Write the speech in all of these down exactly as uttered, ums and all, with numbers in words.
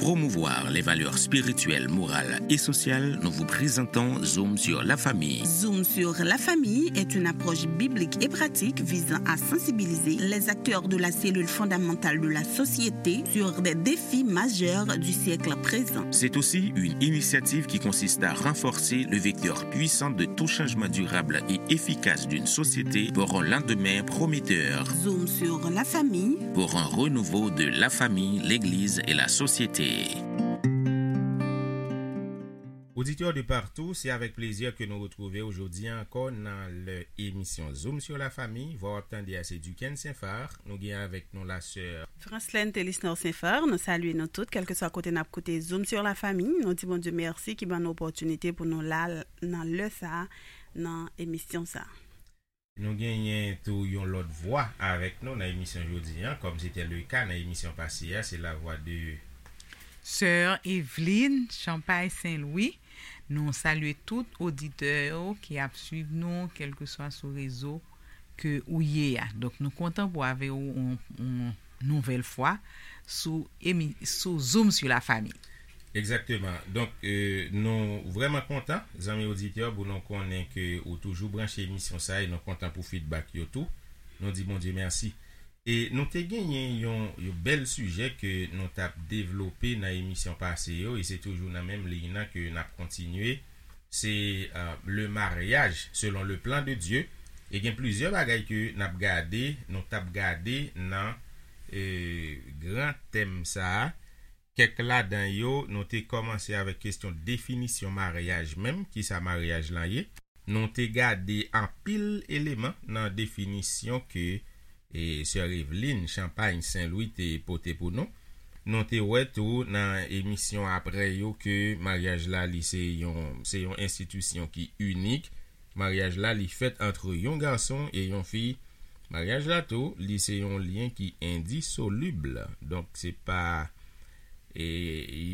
Promouvoir les valeurs spirituelles, morales et sociales, nous vous présentons Zoom sur la famille. Zoom sur la famille est une approche biblique et pratique visant à sensibiliser les acteurs de la cellule fondamentale de la société sur des défis majeurs du siècle présent. C'est aussi une initiative qui consiste à renforcer le vecteur puissant de tout changement durable et efficace d'une société pour un lendemain prometteur. Zoom sur la famille. Pour un renouveau de la famille, l'Église et la société. Oditè de partou, se avèk plezi ke nou retwouve w jodi ankò nan lè emisyon Zoom sur la famille. Vwa w ap tande a se Duquesne Saint-Phar. Nou gen avèk nou la sè Franslène Telisnor Saint-Phar, nou salye nou tout, kèlkeswa kote n ap koute Zoom sur la famille. Nou di Bondye mèsi ki ban nou opòtinite pou nou la nan lè sa a, nan emisyon sa a. Nou genyen tou yon lòt vwa avèk nou nan emisyon jodi a, kòm se te le ka nan emisyon pase a, se la vwa de Sè Evelyne Champagne Saint-Louis. Nou salye tout oditè yo ki ap swiv nou, kèlkeswa sou rezo ke ou ye a. Donk, nou kontan pou avè w yon, yon nouvèl fwa sou emi-, sou Zoom sur la famille. Egzakteman. Donk, euh, nou vrèman kontan, zanmi oditè, pou nou konnen ke ou toujou branche emisyon sa e nou kontan pou feedback yo tou. Nou di Bondye mèsi. E nou te genyen yon, yon bèl sijè ke nou t ap devlope nan emisyon pase yo, e se toujou nan menm liy nan ke n ap kontinye. Se, euh, le mariage selon le plan de Dieu. E gen plizyè bagay ke n ap gade, nou t ap gade nan, euh, gran tèm sa a. Kèk ladan yo, nou te kòmanse avèk kesyon definisyon maryaj menm, kisa maryaj lan ye. Nou te gade anpil eleman nan definisyon ke, e, sè Evelyne Champagne Saint-Louis te pote pou nou. Nou te wè tou nan emisyon aprè yo ke maryaj la, li se yon, se yon enstitisyon ki inik. Maryaj la, li fèt antre yon gason e yon fi. Maryaj la tou, li se yon lyen ki endisolib. Donk, se pa, e,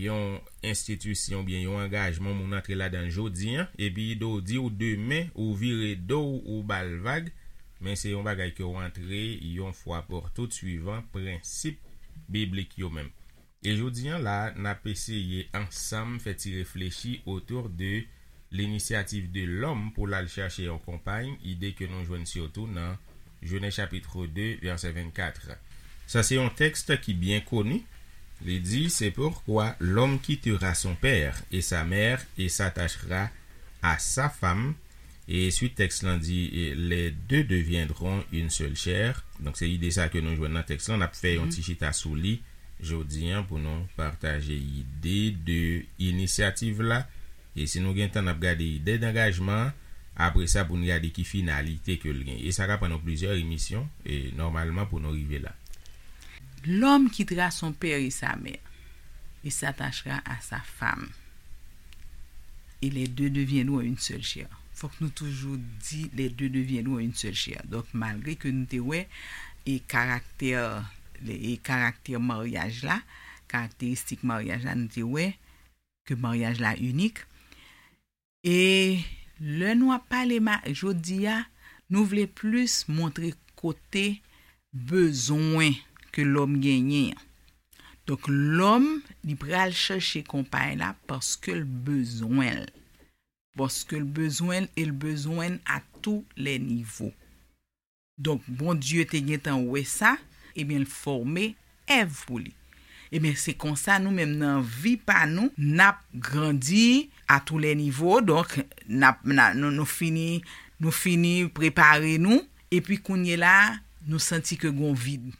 yon enstitisyon oubyen yon angajman moun antre ladan l jodi a, epi do w di w demen, ou vire do w, ou ba l vag, men se yon bagay ke w antre yon fwa pou tout swivan prensip biblik yo menm. E jodi a la, n ap eseye ansanm fè ti reflechi otou de l'initiative de l'homme pou l al chèche yon konpay, ide ke nou jwenn sitou nan Jenèz chapit de, vèsè vennkat. Sa se yon tèks ki byen koni. Li di, c'est pourquoi l'homme quittera son père et sa mère et s'attachera à sa femme. E swit tèks lan di, e, les deux deviendront une seule chair. Donk, se ide sa ke nou jwenn nan tèks lan. N ap fè yon ti chita sou li jodi a pou nou pataje ide de inisyativ la. E si nou gen tan, n ap gade ide dangajman an. Apre sa, pou n gade ki finalite ke l gen. E sa ka pran nou plizyè emisyon, e nòmalman, pou nou rive la. L'homme quittera son père et sa mère, et s'attachera à sa femme. Et les deux deviendront une seule chair. Fòk nou toujou di les deux deviendront une seule chair. Donk, malgre ke nou te wè e karaktè, e karaktè maryaj la, karakteristik maryaj la, nou te wè ke maryaj la inik. E lè nou ap pale ma-, jodi a, nou vle plis montre kote bezwen ke lòm genyen an. Donk, lòm, li pral chèche konpay la paske l bezwen l. Paske l bezwen l e l bezwen l à tous les niveaux. Donk, Bondye te gentan wè sa, ebyen, l fòme Èv pou li. Ebyen, se konsa, nou menm, nan vi pa nou, n ap grandi à tous les niveaux. Donk, n ap, n a, nou, nou fini, nou fini prepare nou. Epi, kounye la, nou santi ke gon vid.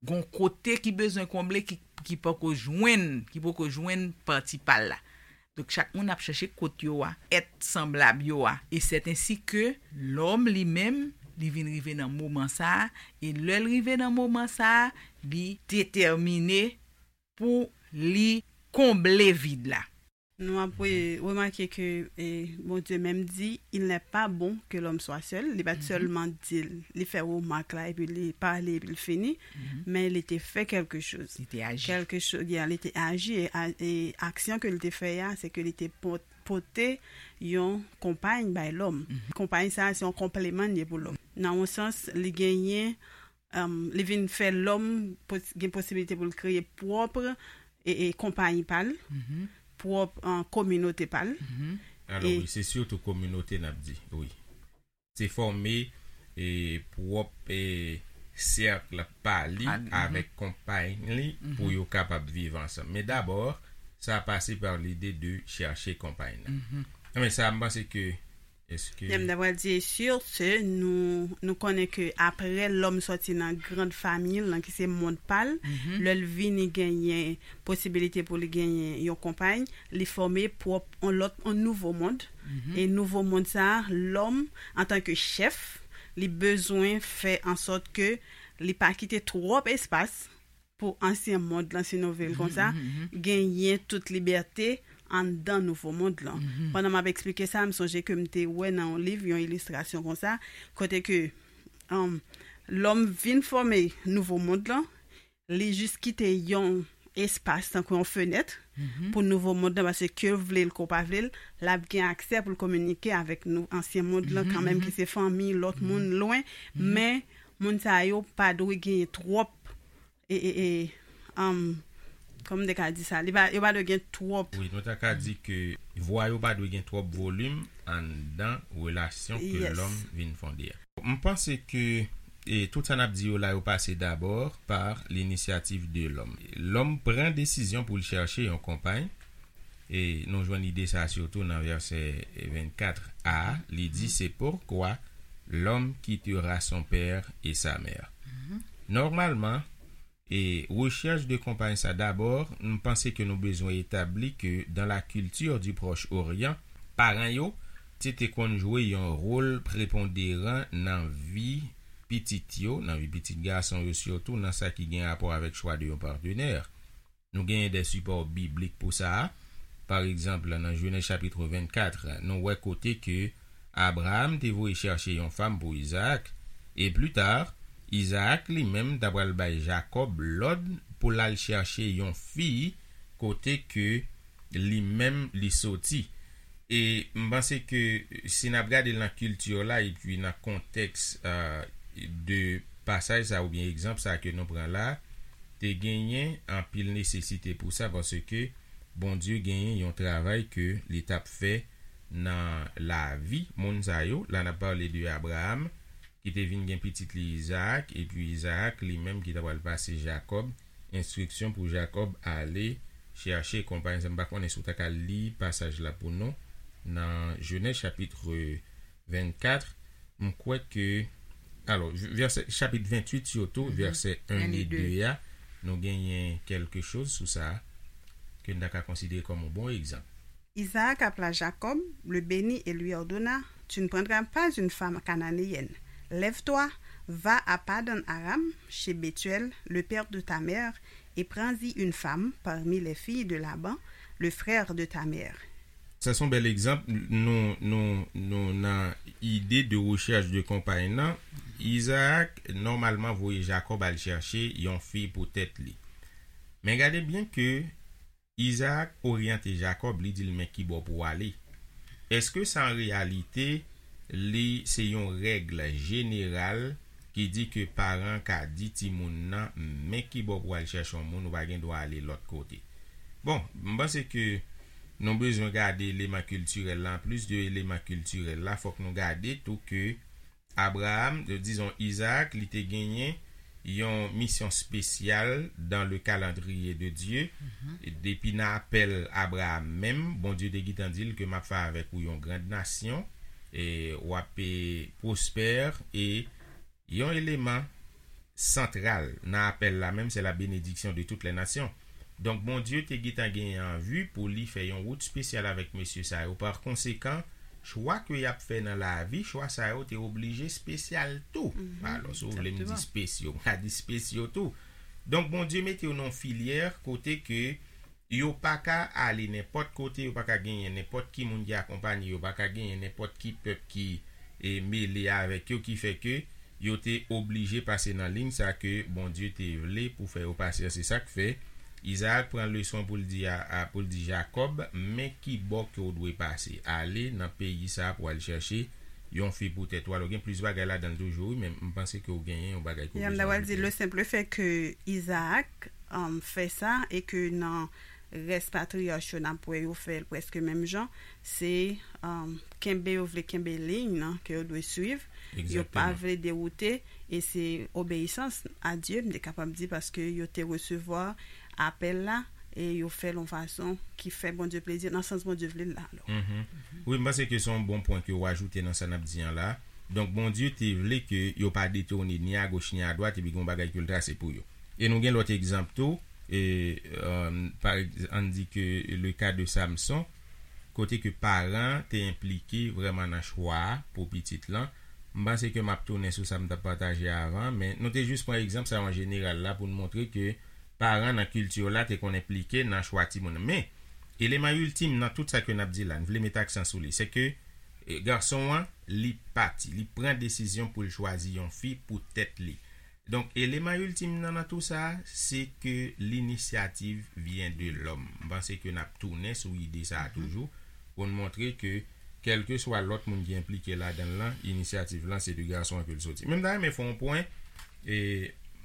Gon kote ki bezwen konble, ki, ki poko jwenn, ki poko jwenn pati pa l la. Donk, chak moun ap chèche kot yo a, èt sanblab yo a. E sèt ensi ke lòm li menm, li vin rive nan moman sa a, e lè l rive nan moman sa a, li detèmine pou li konble vid la. Nou ap re-, remake ke, e, Bondye menm di, il n'est pas bon que l'homme soit seul. Li pa t sèlman di l, li fè remak la, epi li pale, epi l fini, men li te fè kèlke choz. Li te aji. Kèlke choz, yeah, li te aji, e a-, e aksyon ke li te fè a, se ke li te pot-, pote yon konpay bay lòm. Konpay sa a, se yon konpleman li ye pou lòm. Nan yon sans, li genyen, um, li vin fè lòm pos-, gen posibilite pou l kreye pwòp e, e konpayi pa l, pwòp an kominote pa l. Alò wi, se sitou kominote n ap di, wi. Se fòme e pwòp e sèk pa li avèk konpay li pou yo kapab viv ansanm. Men dabò, sa pase pa lide de chèche konpay nan. Men sa, m panse ke eske Lè m ta pral di, sur ce, nou, nou konnen ke apre lòm sòti nan grand famiy l lan, ki se mond pa l, lè l vini genyen posibilite pou li genyen yon konpay, li fòme pwòp on lòt, on nouvo mond. E nouvo mond sa a, lòm, antanke chèf, li bezwen fè an sòt ke li pa kite twòp espas pou ansyen mond lan, si nou vle l konsa, genyen tout libète anndan nouvo mond lan. Pandan m ap eksplike sa, m sonje ke m te wè nan yon liv yon ilistrasyon konsa, kote ke um, lòm vin fòme nouvo mond lan, li jis kite yon espas tankou yon fenèt pou nouvo mond lan, paske ke l vle l ke w pa vle l, l ap gen aksè pou l kominike avèk nou ansyen mond lan kanmenm, ki se fanmi, lòt moun lwen, men moun sa yo pa dwe genyen twòp e, e, e, um, kòman m te ka di sa? Li pa, yo pa dwe gen twòp. Wi, nou ta ka di ke vwa yo pa dwe gen twòp volim anndan relasyon ke lòm vin fonde a. M panse ke e, tout sa n ap di yo la, yo pase dabò pa linisyativ de lòm. Lòm pran desizyon pou l chèche yon konpay. E nou jwenn ide sa sitou nan vèsè vennkat a, li di, c'est pourquoi l'homme quittera son père et sa mère. Nòmalman, e rechèch de konpay sa dabò, m panse ke nou bezwen etabli ke dans la culture du Proche Orient, paran yo te te konn jwe yon wòl preponderan nan vi pitit yo, nan vi pitit gason yo sitou, nan sa ki gen rapò avèk chwa de yon patenè. Nou genyen de sipò biblik pou sa a. Pa egzanp, nan Jenèz chapit vennkat, nou wè kote ke Abraram te voye chèche yon fanm pou Izaak, e pli ta, Izaak li menm ta pral bay Jakòb lòd pou l al chèche yon fi kote ke li menm li soti. E m panse ke si n ap gade l nan kilti la epi nan kontèks de pasaj sa oubyen egzanp sa ke nou pran la, te genyen anpil nesesite pou sa, paske Bondye genyen yon travay ke li t ap fè nan lavi moun sa yo. La n ap pale de Abraram ki te vin gen pitit li Izaak, epi Izaak li menm ki ta pral pase Jakòb enstriksyon pou Jakòb ale chèche konpay sa. M pa konnen si w ta ka li pasaj la pou nou nan Jenèz chapit vennkat, m kwè ke, alò, vèsè, chapit venntuit sitou, vèsè en e de a, nou genyen kèlke choz sou sa ke n ta ka konsidere kòm yon bon egzanp. Isaac appela Jacob, le bénit et lui ordonna, tu ne prendras pas une femme cananéenne. Lève-toi, va à Padan-Aram, chez Bethuel, le père de ta mère, et prends-y une femme parmi les filles de Laban, le frère de ta mère. Sa se yon bèl egzanp. Nou, nou, nou nan ide de rechèch de konpay nan. Izaak nòmalman voye Jakòb al chèche yon fi pou tèt li. Men gade byen ke Izaak oryante Jakòb, li di l men kibò pou w ale. Èske sa an reyalite li se yon règ jeneral ki di ke paran ka di timoun nan men kibò pou w al chèche yon moun, ou pa gen dwa ale lòt kote? Bon, m panse ke nou bezwen gade eleman kiltirèl la. Anplis de eleman kiltirèl la, fòk nou gade tou ke Abraram, dizon Izaak, li te genyen yon misyon spesyal dans le calendrier de Dieu. Depi nan apèl Abraram menm, Bondye te gentan di l ke m ap fè avèk ou yon grand nasyon, e w ap pwospè, e yon eleman santral nan apèl la menm, c'est la bénédiction de toutes les nations. Donk, Bondye te gentan genyen an vi pou li fè yon wout spesyal avèk mesye sa yo. Pa konsekan, chwa ke y ap fè nan lavi, chwa sa yo te oblije spesyal tou. Alò, si w vle m di spesyo, m ka di spesyo tou. Donk, Bondye mete yo nan yon filyè kote ke yo pa ka ale nenpòt kote, yo pa ka genyen nenpòt ki moun ki akonpanye yo, pa ka genyen nenpòt ki pèp ki e, mele avèk yo, ki fè ke yo te oblije pase nan liy sa ke Bondye te vle pou fè yo pase an. Se sa k fè Izaak pran leson pou l di a, a, pou l di Jakòb, men ki bò ke w dwe pase. Ale nan peyi sa pou al chèche yon fi pou tèt ou. Alò, gen plis bagay ladan l toujou, wi, men m panse ke w genyen yon bagay ke w bezwen ajoute. Ya, m ta pral di, le simple fait que Isaac um, fè sa e ke nan rès patriyach yo n ap wè yo fè l prèske menm jan, se um, kenbe, yo vle kenbe liy nan ke yo dwe swiv, yo pa vle dewoute, e se obeyisans a Dye, m te kapab di, paske yo te resevwa apèl la e yo fè l yon fason ki fè Bondye plezi nan sans Bondye vle l la. Alò. Mhm. Wi, m panse ke se yon bon pwen ke w ajoute nan sa n ap di an la. Donk, Bondye te vle ke yo pa detounen ni agoch ni adwat, epi gen yon bagay ke l trase pou yo. E nou gen lòt egzanp tou, e, um, pa egz- ann di ke le ka de Samson, kote ke paran te enplike vrèman nan chwa a pou pitit lan. M panse ke m ap tounen sou sa m t ap pataje avan, men nou te jis pran egzanp sa yo an jeneral la pou n montre ke paran nan kilti yo la te konn enplike nan chwa timoun. Men, eleman iltim nan tout sa ke n ap di la, n vle met aksan sou li, se ke, e, gason an, li pati, li pran desizyon pou l chwazi yon fi pou tèt li. Donk, eleman iltim nan, nan tou sa, se ke l'initiative vient de l'homme. M panse ke n ap tounen sou ide sa a toujou, pou n montre ke, kèlkeswa lòt moun ki enplike ladan l lan, inisyativ lan, se de gason an ke l soti. Men m ta renmen fè yon pwen, e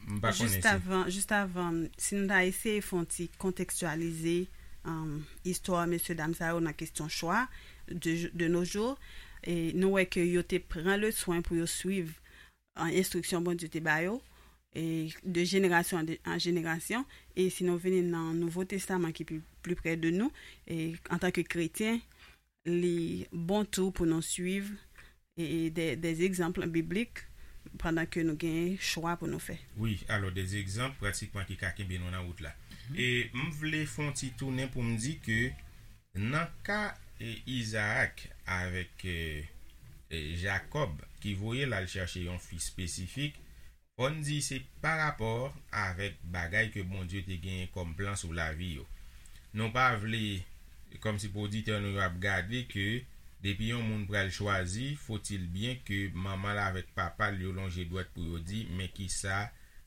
m pa konnen Jis si avan, jis avan, si nou ta eseye fè yon ti kontekstyalize um, istwa mesye dam sa yo nan kesyon chwa de, de nos jours, e nou wè ke yo te pran le swen pou yo swiv an enstriksyon Bondye te ba yo, e de jenerasyon an de- an jenerasyon, e si nou vini nan Nouvo Testaman ki pi, pi pre de nou, e antanke kretyen, li bon tou pou nou swiv e, e de, de egzanp biblik pandan ke nou gen chwa pou nou fè. Wi, alò, de egzanp pratikman ki ka kenbe nou nan wout la. E m vle fè yon ti tounen pou m di ke nan ka e, Izaak avèk e, e, Jakòb ki voye l al chèche yon fi espesifik, fò n di se pa rapò avèk bagay ke Bondye te genyen kòm plan sou lavi yo. Nou pa vle, kòmsi pou oditè nou yo ap gade ke depi yon moun pral chwazi, faut-il bien ke manman l avèk papa l yo lonje dwèt pou yo di, men kisa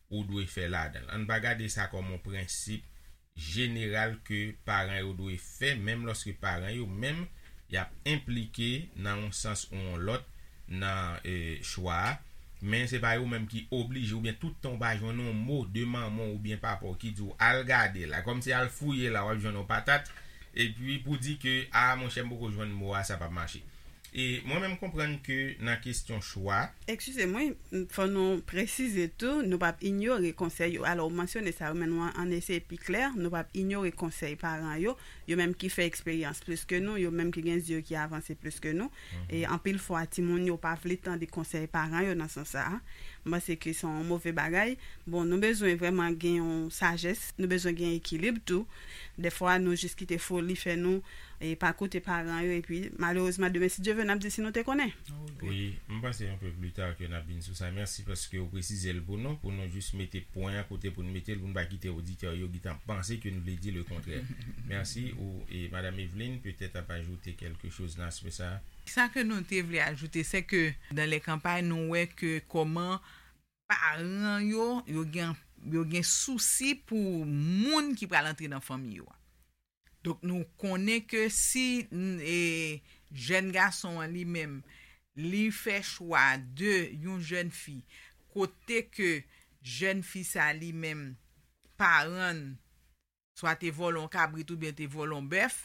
ou dwe fè ladan l. Ann pa gade sa kòm yon prensip jeneral ke paran yo dwe fè, menm lòske paran yo menm y ap enplike nan yon sans ou yon lòt nan e, chwa a. Men se pa yo menm ki oblije, oubyen tout tan w pa jwenn yon mo de manman w oubyen papa w ki di w al gade la, kòmsi al fouye la w ap jwenn yon patat, epi pou di ke a monchè m poko jwenn mo a, sa p ap mache. E mwen menm konprann ke nan kesyon chwa. Eskize m, wi, fò nou presize tou, nou p ap inyore konsèy yo. Alò, ou mansyone sa yo, men nou an, ann eseye pi klè, nou p ap inyore konsèy paran yo, yo menm ki fè eksperyans plis ke nou, yo menm ki gen zye ki avanse plis ke nou. E anpil fwa, timoun yo pa vle tande konsèy paran yo nan sans sa a. M panse ke se yon move bagay. Bon, nou bezwen vrèman gen yon sajès, nou bezwen gen ekilib tou. Dèfwa, nou jis kite foli fè nou e pa koute paran yo, epi malerezman, demen, si Dye vle, n ap di si nou te konnen. Wi, m panse yon pe pli ta ke n ap vin sou sa. Mèsi paske w presize l pou nou, pou nou jis mete pwen an kote pou n mete l, pou n pa kite oditè yo gentan panse ke n vle di le kontrè. Mèsi, ou, e Madam Eveline, petèt ap ajoute kèlke choz nan aspè sa a. Sa ke nou te vle ajoute, se ke dan lè kanpay, nou wè ke kòman paran yo, yo gen, yo gen sousi pou moun ki pral antre nan fanmi yo a. Donk, nou konnen ke si n- e, jèn gason an li menm, li fè chwa de yon jèn fi, kote ke jèn fi sa li menm, paran l, swa te vòlè yon kabrit oubyen te vòlè yon bèf,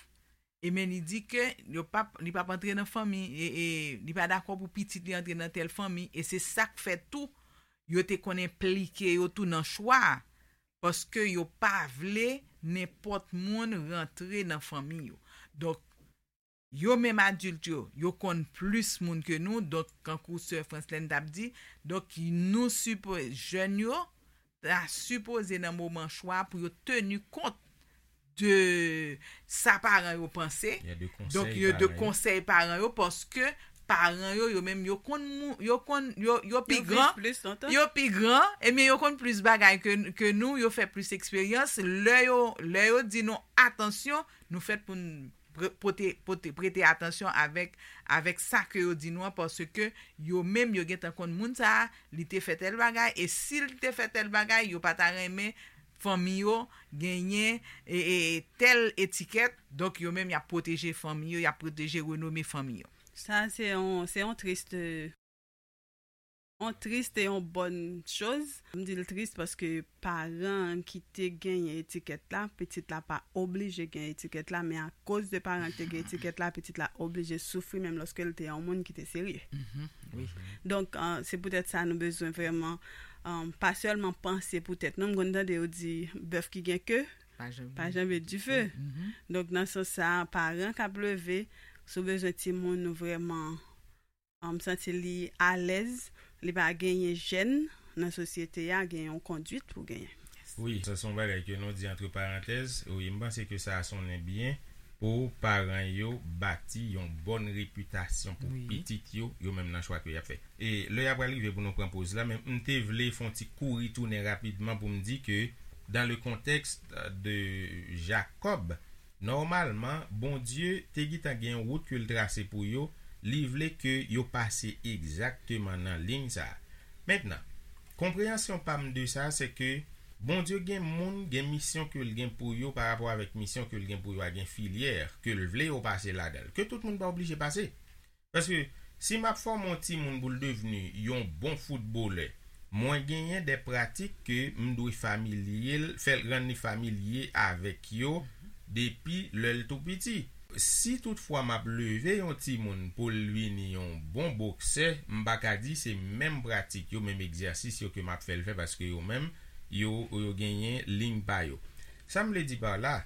e men li di ke yo p ap, li p ap antre nan fanmi, e, e li pa dakò pou pitit li antre nan tèl fanmi, e se sa k fè tou yo te konn enplike yo tou nan chwa a, paske yo pa vle nenpòt moun rantre nan fanmi yo. Donk, yo menm adilt yo, yo konn plis moun ke nou, donk, kankou sè Franslèn t ap di, donk, nou sipo-, jèn yo, ta sipoze nan moman chwa pou yo teni kont de sa paran yo panse. Donk, yo de konsèy paran yo, paske paran yo, yo menm, yo konn mou-, yo konn, yo, yo pi gran, yo pi gran, ebyen, yo konn plis bagay ke, ke nou, yo fè plis eksperyans. Lè yo, lè yo di nou, atansyon, nou fèt pou n pre- pote, pote, prete atansyon avèk, avèk sa ke yo di nou an, paske yo menm, yo gentan konn moun sa a, li te fè tèl bagay, e si l te fè tèl bagay, yo pa ta renmen fanmi yo genyen e, e, tèl etikèt, donk yo menm, y ap pwoteje fanmi yo, y ap pwoteje renome fanmi yo. Sa se yon, se yon triste, yon triste, yon bonne chose. M di l triste paske paran ki te genyen etikèt la, pitit la pa oblije gen etikèt la, men akoz de paran ki te gen etikèt la, pitit la oblije soufri menm lòske l te yon moun ki te serye. Mhm, wi. Donk, euh, se poutèt sa nou bezwen vrèman, euh, pa sèlman panse pou tèt nou. M konn tande yo di bèf ki gen ke Pa janbe. Pa janbe dife. Mhm. Donk, nan sans sa, paran k ap leve, si w bezwen timoun ou vrèman, um, santi li alèz, li pa genyen jèn nan sosyete a, gen yon kondwit pou genyen. Wi, sa se yon bagay ke nou di antre parantèz. Wi, m panse ke sa a sonnen byen pou paran yo bati yon bòn repitasyon pou Wi. Pitit yo, yo menm nan chwa ke y ap fè. E lè y ap rive pou nou pran poz la, men m te vle fè yon ti kouri tounen rapidman pou m di ke dans le contexte de Jacob, nòmalman, Bondye te gentan gen yon wout ke l trase pou yo, li vle ke yo pase egzakteman nan liy sa a. Mentnan, konpreyansyon pa m de sa, se ke Bondye gen moun, gen misyon ke l gen pou yo, pa rapò avèk misyon ke l gen pou yo a, gen filyè ke l vle yo pase ladan l, ke tout moun pa oblije pase. Paske si m ap fòme yon timoun pou l devni yon bon foutbolè, mwen genyen de pratik ke m dwe familye l, fè l rann li familye avèk yo depi lè l tou piti. Si toutfwa m ap leve yon timoun pou l vini yon bon boksè, m pa ka di se menm pratik yo, menm egzèsis yo ke m ap fè l fè, paske yo menm, yo, yo genyen liy pa yo. Sa m vle di pa la,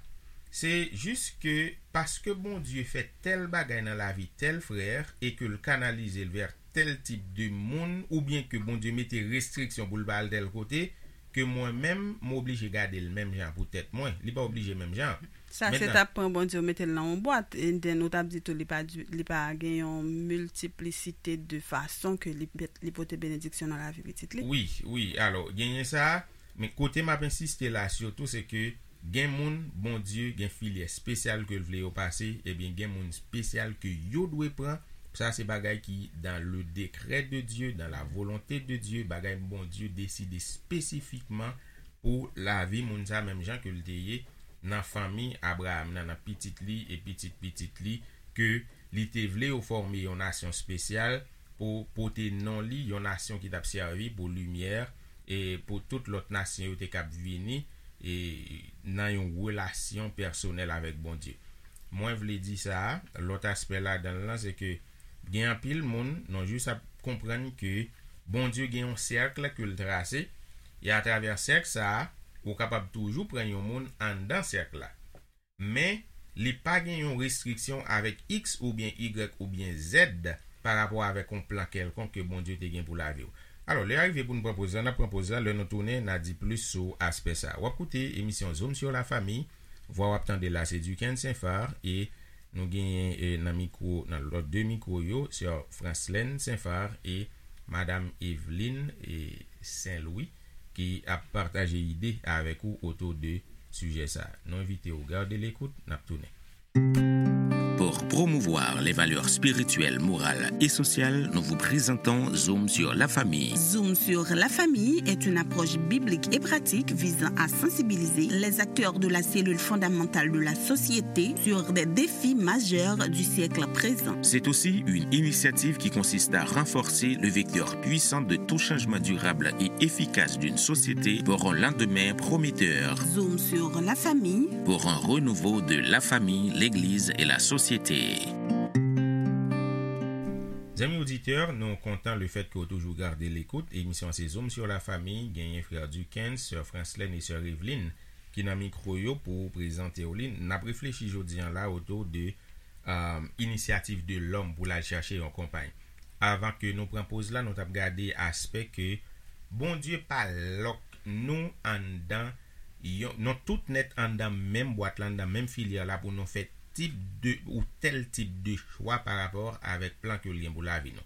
se jis ke paske Bondye fè tèl bagay nan lavi tèl frè e ke l kanalize l vè tèl tip de moun, oubyen ke Bondye mete restriksyon pou l pa al tèl kote, ke mwen menm, m oblije gade l menm jan pou tèt mwen. Li pa oblije menm jan. Sa se t ap pran Bondye ou mete l nan yon bwat, and then ou t ap di tou li pa, di- li pa gen yon miltiplisite de fason ke li, li pote benediksyon nan lavi pitit li. Wi, wi. Alò, genyen sa, men kote m ap ensiste la sitou, se ke gen moun, Bondye, gen filyè espesyal ke l vle yo pase, ebyen, gen moun espesyal ke yo dwe pran. Sa se bagay ki dans le décret de Dieu, dans la volonté de Dieu, bagay Bondye deside espesifikman pou lavi moun sa, menm jan ke l te ye nan fanmi Abraham nan, nan pitit li e pitit pitit li, ke li te vle yo fòme yon nasyon espesyal pou pote non li, yon nasyon ki t ap sèvi pou limyè e pou tout lòt nasyon yo te kab vini e nan yon relasyon pèsonèl avèk Bondye. Mwen vle di sa, lòt aspè ladan l lan, se ke gen anpil moun, nou jis ap konprann ke Bondye gen yon sèk ke l trase, e atravè sèk sa a, ou kapab toujou pran yon moun anndan sèk la. Men, li pa gen yon restriksyon avèk X oubyen Y oubyen Z pa rapò avèk yon plan kèlkonk ke Bondye te gen pou lavi w. Alò, lè a rive pou n pran poz la, n ap pran poz la, lè nou tounen, n a di plis sou aspè sa a. W ap koute emisyon Zoom sur la famille, vwa w ap tande la se Duckens Saint-Phar, e nou genyen e, nan mikwo, nan lòt de mikwo yo, sè Franslène Saint-Phar e madam Eveline e Saint-Louis ki ap pataje ide avèk ou otou de sijè sa a. Nou envite w gade lekout, n ap tounen. Pour promouvoir les valeurs spirituelles, morales et sociales, nous vous présentons Zoom sur la famille. Zoom sur la famille est une approche biblique et pratique visant à sensibiliser les acteurs de la cellule fondamentale de la société sur des défis majeurs du siècle présent. C'est aussi une initiative qui consiste à renforcer le vecteur puissant de tout changement durable et efficace d'une société pour un lendemain prometteur. Zoom sur la famille. Pour un renouveau de la famille, l'Église et la société. Zanmi oditè, nou kontan le fèt ke w toujou gade lekout. Emisyon se Zoom sur la famille, genyen frè Duckens, sè Franslène e sè Eveline ki nan mikwo yo pou prezante w li. N ap reflechi jodi an la otou de um, inisyativ de lòm pou l al chache yon konpay. Avan ke nou pran poz la, nou t ap gade aspè ke Bondye pa lòk nou anndan, yon, nou tout nèt anndan menm bwat la, anndan menm filyè la pou nou fè tip de, ou tèl tip de chwa pa rapò avèk plan ke l gen pou lavi nou.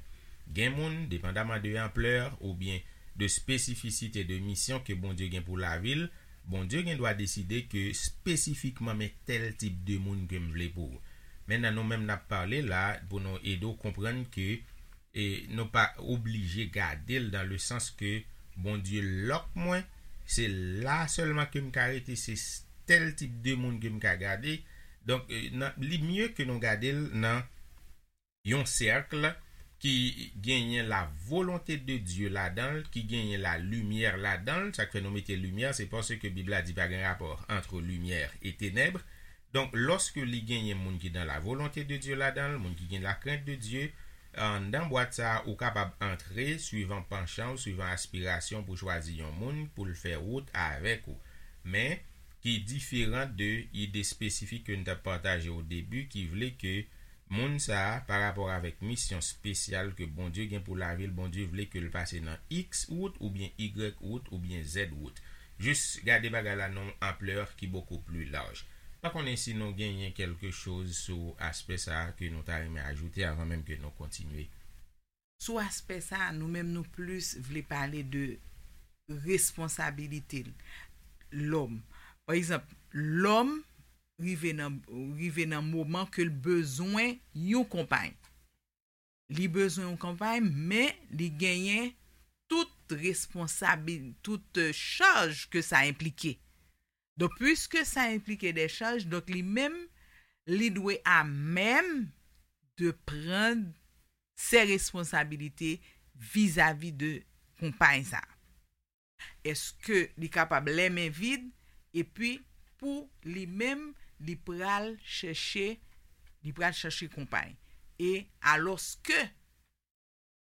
Gen moun, depandaman de anplè oubyen de espesifisite de misyon ke Bondye gen pou lavi l, Bondye gen dwa deside ke espesifikman men tèl tip de moun ke m vle pou ou. Mentnan nou menm n ap pale la pou nou ede w konprann ke e nou pa oblije gade l dan le sans ke Bondye lòk mwen, se la sèlman ke m ka rete, se tèl tip de moun ke m ka gade. Donk, e, nan, li mye ke nou gade l nan yon sèk ki genyen la volonte de Dye ladan l, ki genyen la limyè ladan l. Sa k fè nou mete limyè, se paske Bib la di pa gen rapò ant limyè e tenèb. Donk, lòske li genyen moun ki dan la volonte de Dye ladan l, moun ki gen la krent de Dye, anndan bwat sa a, ou kapab antre swivan panchan w, swivan aspirasyon w pou chwazi yon moun pou l fè wout avèk ou. Men, ki diferan de ide espesifik ke n t ap pataje o debi, ki vle ke moun sa a, pa rapò avèk misyon espesyal ke Bondye gen pou lavi l, Bondye vle ke l pase nan X wout oubyen Y wout oubyen Z wout. Jis gade bagay la nan yon anplè ki bokou pli laj. Pa konnen si nou genyen kèlke choz sou aspè sa a ke nou ta renmen ajoute avan menm ke nou kontinye. Sou aspè sa a, nou menm nou plis vle pale de responsabilite lòm. Pa egzanp, lòm rive nan rive nan moman ke l bezwen yon konpay. Li bezwen yon konpay, men li genyen tout responsabil, tout euh, chaj ke sa enplike. Donk, piske sa enplike de chaj, donk li menm, li dwe a menm de pran se responsabilite vizavi de konpay sa. Èske li kapab lèmen vid epi pou li menm li pral chèche li pral chèche konpay e alòske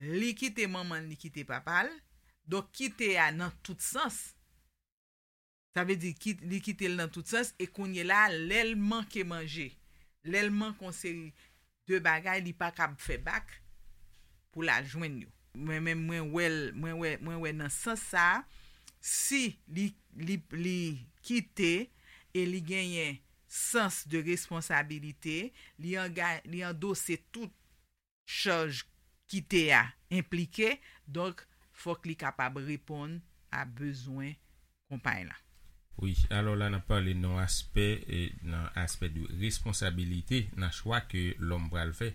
li kite manman l li kite papa l donk kite a nan tout sans sa vle di ki- li kite l nan tout sans e kounye la lè l manke manje lè l manke yon seri de bagay li pa kab fè bak pou l al jwenn yo. Mwen menm mwen wè l mwen wè mwen wè nan sans sa a, si li li li kite e li genyen sans de responsabilite, li anga li andose tout chaj kite a enplike, donk fòk li kapab reponn a bezwen konpay la. Wi, alò la n ap pale nan aspè e nan aspè de responsabilite nan chwa ke lòm pral fè.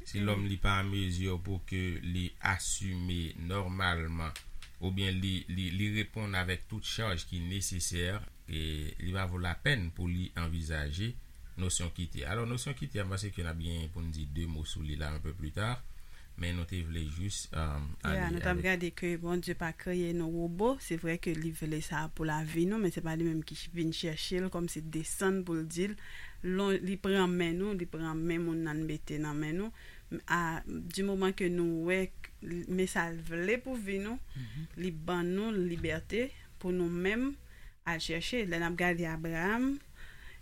Si lòm li pa an mezi pou ke li asime nòmalman oubyen li li li reponn avèk tout chaj ki nesesè, e li pa vo lapèn pou li anvizaje nosyon kite. Alò nosyon kite a m panse ke n ap gen pou n di de mo sou li la un peu plus tard. Men nou te vle jis um, Yeah, nou t ap gade ke Bondye pa kreye nou wobo. Se vre ke li vle sa pou lavi nou, men se pa li menm ki vin chèche l kòmsi desann pou l di l. Lon, li pran men nou, li pran men moun nan l mete nan men nou. A, di moman ke nou wè men sa l vle pou vi nou, li ban nou libète pou nou menm al chèche. Lè n ap gade Abraham,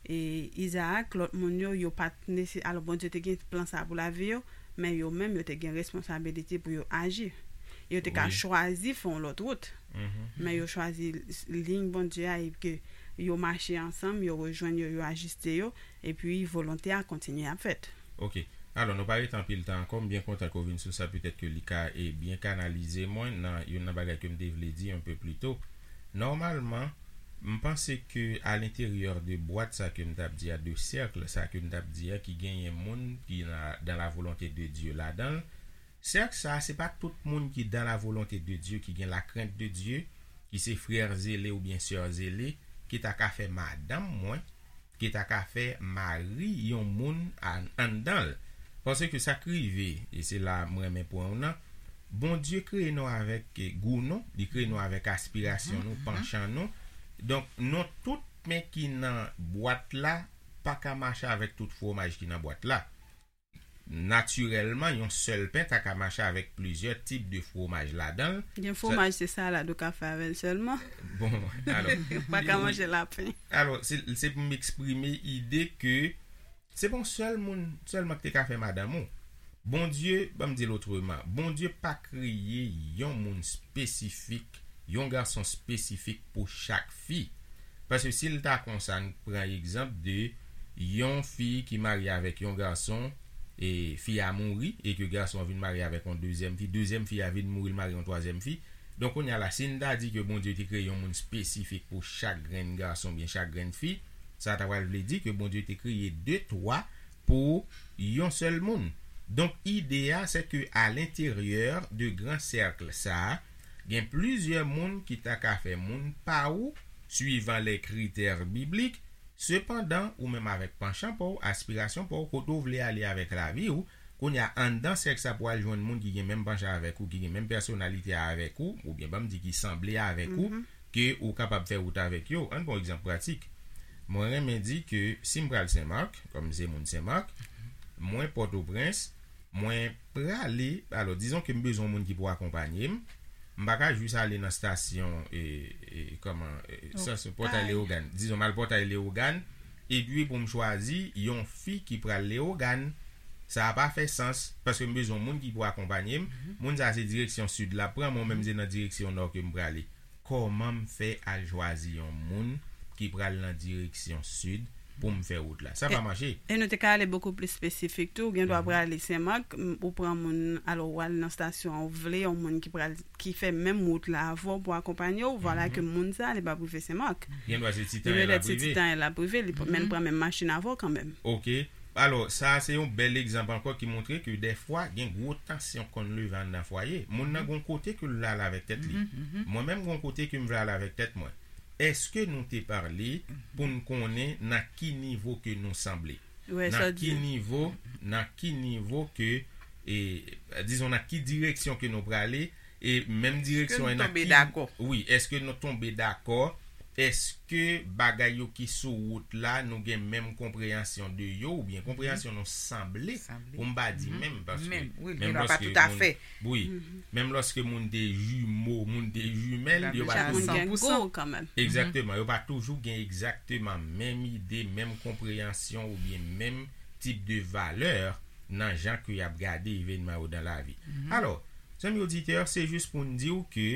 e Izaak, lòt moun yo, yo pa t nese alò Bondye te gen plan sa pou lavi yo, men yo menm yo te gen responsabilite pou yo aji. Yo te ka chwazi fè yon lòt wout, men yo chwazi liy Bondye a e ke yo mache ansanm, yo rejwenn yo, yo ajiste yo, epi volonte a kontinye ap fèt. Ok. Alò, nou pa rete anpil tan ankò. M byen kontan ke w vin sou sa. Petèt ke li ka e byen kanalize mwen nan youn nan bagay ke m te vle di un peu plus tôt. Nòmalman, m panse ke alenteryè de bwat sa ke m t ap di a, de sèk sa ke m t ap di a, ki genyen moun ki nan dan la volonte de Dye ladan l, sèk sa, se pa tout moun ki dan la volonte de Dye, ki gen la krent de Dye, ki se frè zele oubyen sè zele, ki ta ka fè madanm mwen, ki ta ka fè mari yon moun anndan l. Paske sa k rive, e se la m renmen pran w nan, Bondye kreye nou avèk gou nou, li kreye nou avèk aspirasyon nou, panchan nou. Donk, nou tout men ki nan bwat la pa ka mache avèk tout fwomaj ki nan bwat la. Natirèlman, yon sèl pen ta ka mache avèk plizyè tip de fwomaj ladan l. Gen fwomaj se salad ou ka fè avè l sèlman. Bon, alò. Ou pa ka manje lapen. Alò, se se pou m eksprime ide ke se pa yon sèl moun sèlman ki te ka fè madanm ou. Bondye, ban m di l otreman, Bondye pa kreye yon moun espesifik, yon gason espesifik pou chak fi. Paske si l ta konsa, n pran egzanp de yon fi ki marye avèk yon gason, e fi a mouri, e ke gason an vin marye avèk yon dezyèm fi, dezyèm fi a vin mouri, l marye yon twazyèm fi. Donk, kounye a la, si n ta di ke Bondye te kreye yon moun espesifik pou chak grenn gason oubyen chak grenn fi, sa ta pral vle di ke Bondye te kreye de, twa pou yon sèl moun. Donk, ide a, se ke alenteryè de gran sèk sa a, gen plizyè moun ki ta ka fè moun pa ou, swivan lè kritè biblik. Sepandan, ou menm avèk panchan pa w, aspirasyon pa w, kote w vle ale avèk lavi w, Kounye a, anndan sèks la pou al jwenn moun ki gen menm panche avèk ou, ki gen menm pèsonalite a avèk ou, oubyen ban m di ki sanble avèk ou, ke ou kapab fè wout avèk yo. Ann pran yon egzanp pratik. Mwen renmen di ke si m pral Senmak, kòm m se moun Senmak, mwen Pòtoprens, mwen prale, alò, dizon ke m bezwen yon moun ki pou akonpanye m, m pa ka jis ale nan stasyon, e, e, kòman, e, stasyon Pòtay Leyogàn. Dizon, m al Pòtay Leyogàn, epi pou m chwazi yon fi ki pral Leyogàn. Sa a pa fè sans, paske m bezwen yon moun ki pou akonpanye m. Moun sa a se direksyon sid l ap pran, mwen menm se nan direksyon nò ke m prale. Kòman m fè al chwazi yon moun ki pral nan direksyon sid pou m fè wout la? Sa pa mache. E nou te ka ale bokou pli espesifik tou. Ou gen dwa prale Senmak, m, ou pran moun, alò, ou al nan stasyon an, ou vle yon moun ki pral, ki fè menm wout la avè w pou akonpanye w. Vwala ke moun sa a, li p ap rive Senmak. Gen dwa se ti tan l ap rive. Ti tan l ap rive, li p-, men l pran menm machin avè w kanmenm. Ok. Alò, sa a se yon bèl egzanp ankò ki montre ke dèfwa gen gwo tansyon konn leve anndan fwaye. Moun nan gon kote ke l vle al avèk tèt li. Mwen menm gon kote ke m vle al avèk tèt mwen. Èske nou te pale pou n konnen nan ki nivo ke nou sanble? Nan ki nivo, nan ki nivo ke, e, dizon, nan ki direksyon ke nou prale, e menm direksyon an nan ki, wi, èske nou tonbe dakò? Èske bagay yo ki sou wout la, nou gen menm konpreyansyon de yo, oubyen konpreyansyon nou sanble, pou m pa di menm, paske menm lòske moun, wi, menm lòske moun de jimo, moun de jimèl, yo pa toujou gen gwo kanmenm. Egzakteman, yo pa toujou gen egzakteman menm ide, menm konpreyansyon oubyen menm tip de valè nan jan ke y ap gade evènman yo nan lavi. Alò, zanmi oditè, se jis pou n di w ke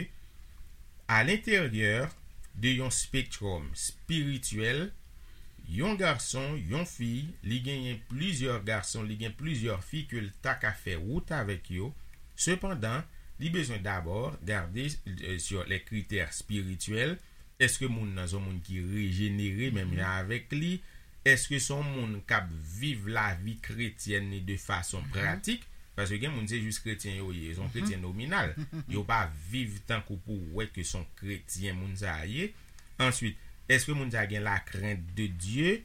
a lenteryè de yon spektwòm espirityèl, yon gason, yon fi, li genyen plizyè gason, li gen plizyè fi ke l ta ka fè wout avèk yo. Sepandan, li bezwen dabò gade, euh, sur les critères spirituels. Èske moun nan se yon moun ki rejenere menm jan avèk li? Èske se yon moun k ap viv lavi kretyèn li de fason pratik? Paske gen moun se jis kretyen yo ye, se yon kretyen nominal. Yo pa viv tankou pou w wè ke se yon kretyen moun sa a ye. Answit, èske moun sa a gen la crainte de Dieu?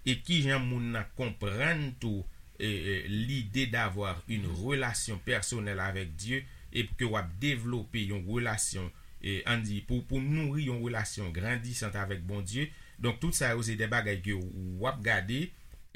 E kijan moun nan konprann tou, e, e, l'idée d'avoir une relation personnelle avec Dieu, e ke w ap devlope yon relasyon, e, ann di, pou, pou nouri yon relasyon grandisant avèk Bondye? Donk, tout sa yo se de bagay ke w ap gade,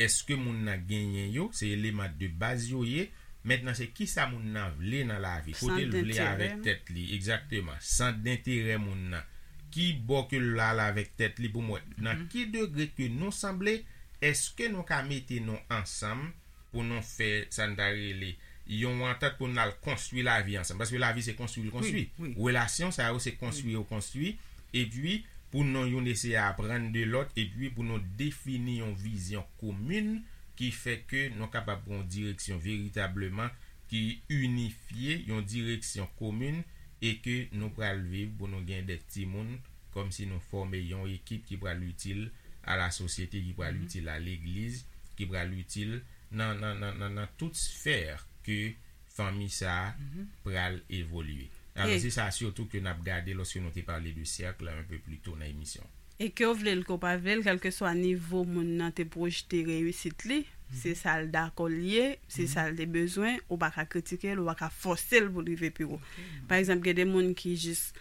èske moun nan genyen yo, se eleman de baz yo ye. Mentnan, se kisa moun nan vle nan lavi, kote l vle avèk tèt li, egzakteman, sant denterè moun nan. Ki bò ke l al avèk tèt li pou m wè nan ki degre ke nou sanble, èske nou ka mete nou ansanm pou nou fè sa n ta rele yon antant pou n al konstwi lavi ansanm. Paske lavi se konstwi l konstwi. Relasyon sa yo se konstwi yo konstwi. Epi pou nou youn eseye aprann de lòt, epi pou nou defini yon vizyon komin ki fè ke nou kapab pran yon direksyon veritableman ki inifye, yon direksyon komin, e ke nou pral viv pou nou gen de timoun, kòmsi nou fòme yon ekip ki pral itil a la sosyete, ki pral itil a legliz, ki pral itil nan, nan, nan, nan, nan tout sfè ke fanmi sa a pral evolye. Alò, se sa sitou ke n ap gade lòske nou te pale de sèk la un peu plus tôt nan emisyon. E ke w vle l, ke w pa vle l, kèlkeswa nivo moun nan te pwojte reyisit li, se sa l dakò l ye, se sa l te bezwen, ou pa ka kritike l, ou pa ka fòse l pou l rive pi wo. Pa egzanp, gen de moun ki jis,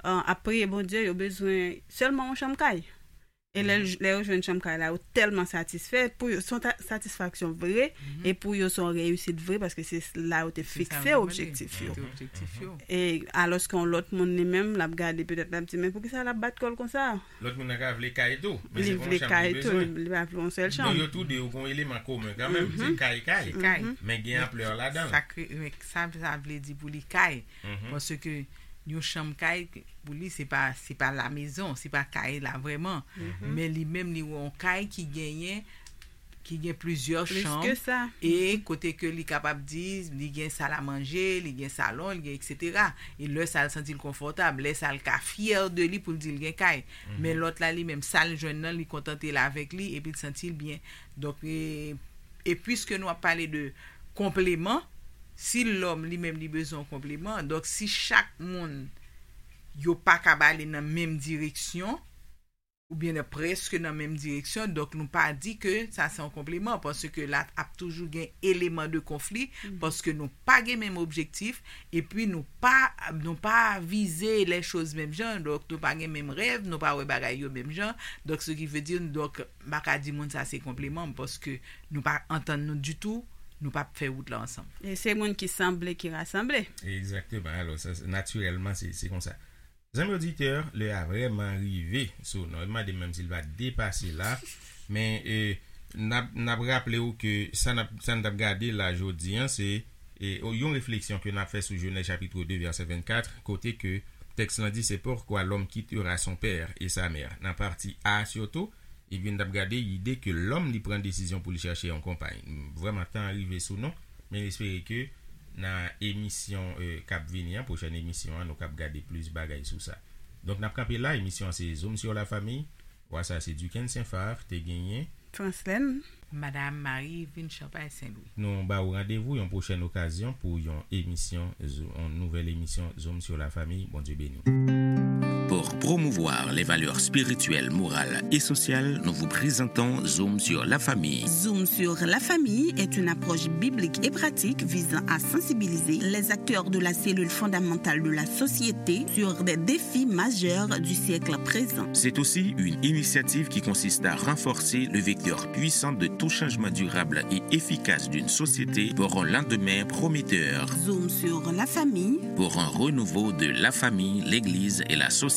euh, ap priye Bondye, yo bezwen sèlman yon chanm kay. E lè, lè yo jwenn chanm kay la, yo tèlman satisfè. Pou yo, se yon ta-, satisfaksyon vre, e pou yo, se yon reyisit vre, paske se la yo te fikse objektif yo. E alòske yon lòt moun li menm, l ap gade, petèt l ap di, "Men poukisa l ap bat kò l konsa?" Lòt moun nan ka vle kay tou, men se pa yon chanm li bezwen. Li pa vle yon sèl chanm. Donk, yo tou de yo gen yon eleman komen kanmenm, se kay, kay. Men gen anplè ladan l. Sa, sa vle di pou li kay. Paske yon chanm kay, pou li, se pa, se pa la mezon, se pa kay la vrèman. Men li menm, li wè yon kay ki genyen, ki gen plizyè chanm, e kote ke li kapab di, li gen sal a manje, li gen salon, li gen etsetera. E lè sa l santi l konfòtab, lè sa l ka fyè de li pou l di l gen kay. Men lòt la, li menm, sa l jwenn nan, li kontante l avèk li, epi l santi l byen. Donk, e, e piske nou ap pale de konpleman, si lòm li menm li bezwen yon konpleman, donk si chak moun yo pa ka ale nan menm direksyon, oubyen nan, prèske nan menm direksyon. Donk, nou pa di ke sa se yon konpliman, paske la ap toujou gen eleman de konfli, paske nou pa gen menm objektif, epi nou pa, nou pa vize les choses menm jan, donk nou pa gen menm rèv, nou pa wè bagay yo menm jan, donk ce qui veut dire, donk, m pa ka di moun sa se konpliman, paske nou pa antann nou ditou, nou pa fè wout la ansanm. E se moun ki sanble ki rasanble. Egzakteman. Alò, sa, natirèlman, se, se konsa. Zanmi oditè, lè a vrèman rive sou nou. Li mande m menm si l va depase la. Men, e, n ap, n ap raple w ke sa n ap, sa n t ap gade la jodi a, se, e, yon refleksyon ke n ap fè sou Jenèz chapit de, vèsè vennkat, kote ke tèks lan di, c'est pourquoi l'homme quittera son père et sa mère. Nan pati A sitou, epi n t ap gade ide ke lòm li pran desizyon pou li chache yon konpay. Vrèman, tan an rive sou nou, men n espere ke nan emisyon, e, k ap vini an, pwochèn emisyon an, nou kab gade plis bagay sou sa. Donk, n ap kanpe la, emisyon an se Zoom sur la famille. Vwa sa se Duquesne Saint-Phar, te genyen. Franslène. Madame Marie Yveline Champagne Saint-Louis. Nou ba ou randevou yon pwochèn okazyon pou yon emisyon, Zo- yon nouvèl emisyon Zoom sur la famille. Bondye beni w. Pour promouvoir les valeurs spirituelles, morales et sociales, nous vous présentons Zoom sur la famille. Zoom sur la famille est une approche biblique et pratique visant à sensibiliser les acteurs de la cellule fondamentale de la société sur des défis majeurs du siècle présent. C'est aussi une initiative qui consiste à renforcer le vecteur puissant de tout changement durable et efficace d'une société pour un lendemain prometteur. Zoom sur la famille. Pour un renouveau de la famille, l'Église et la société.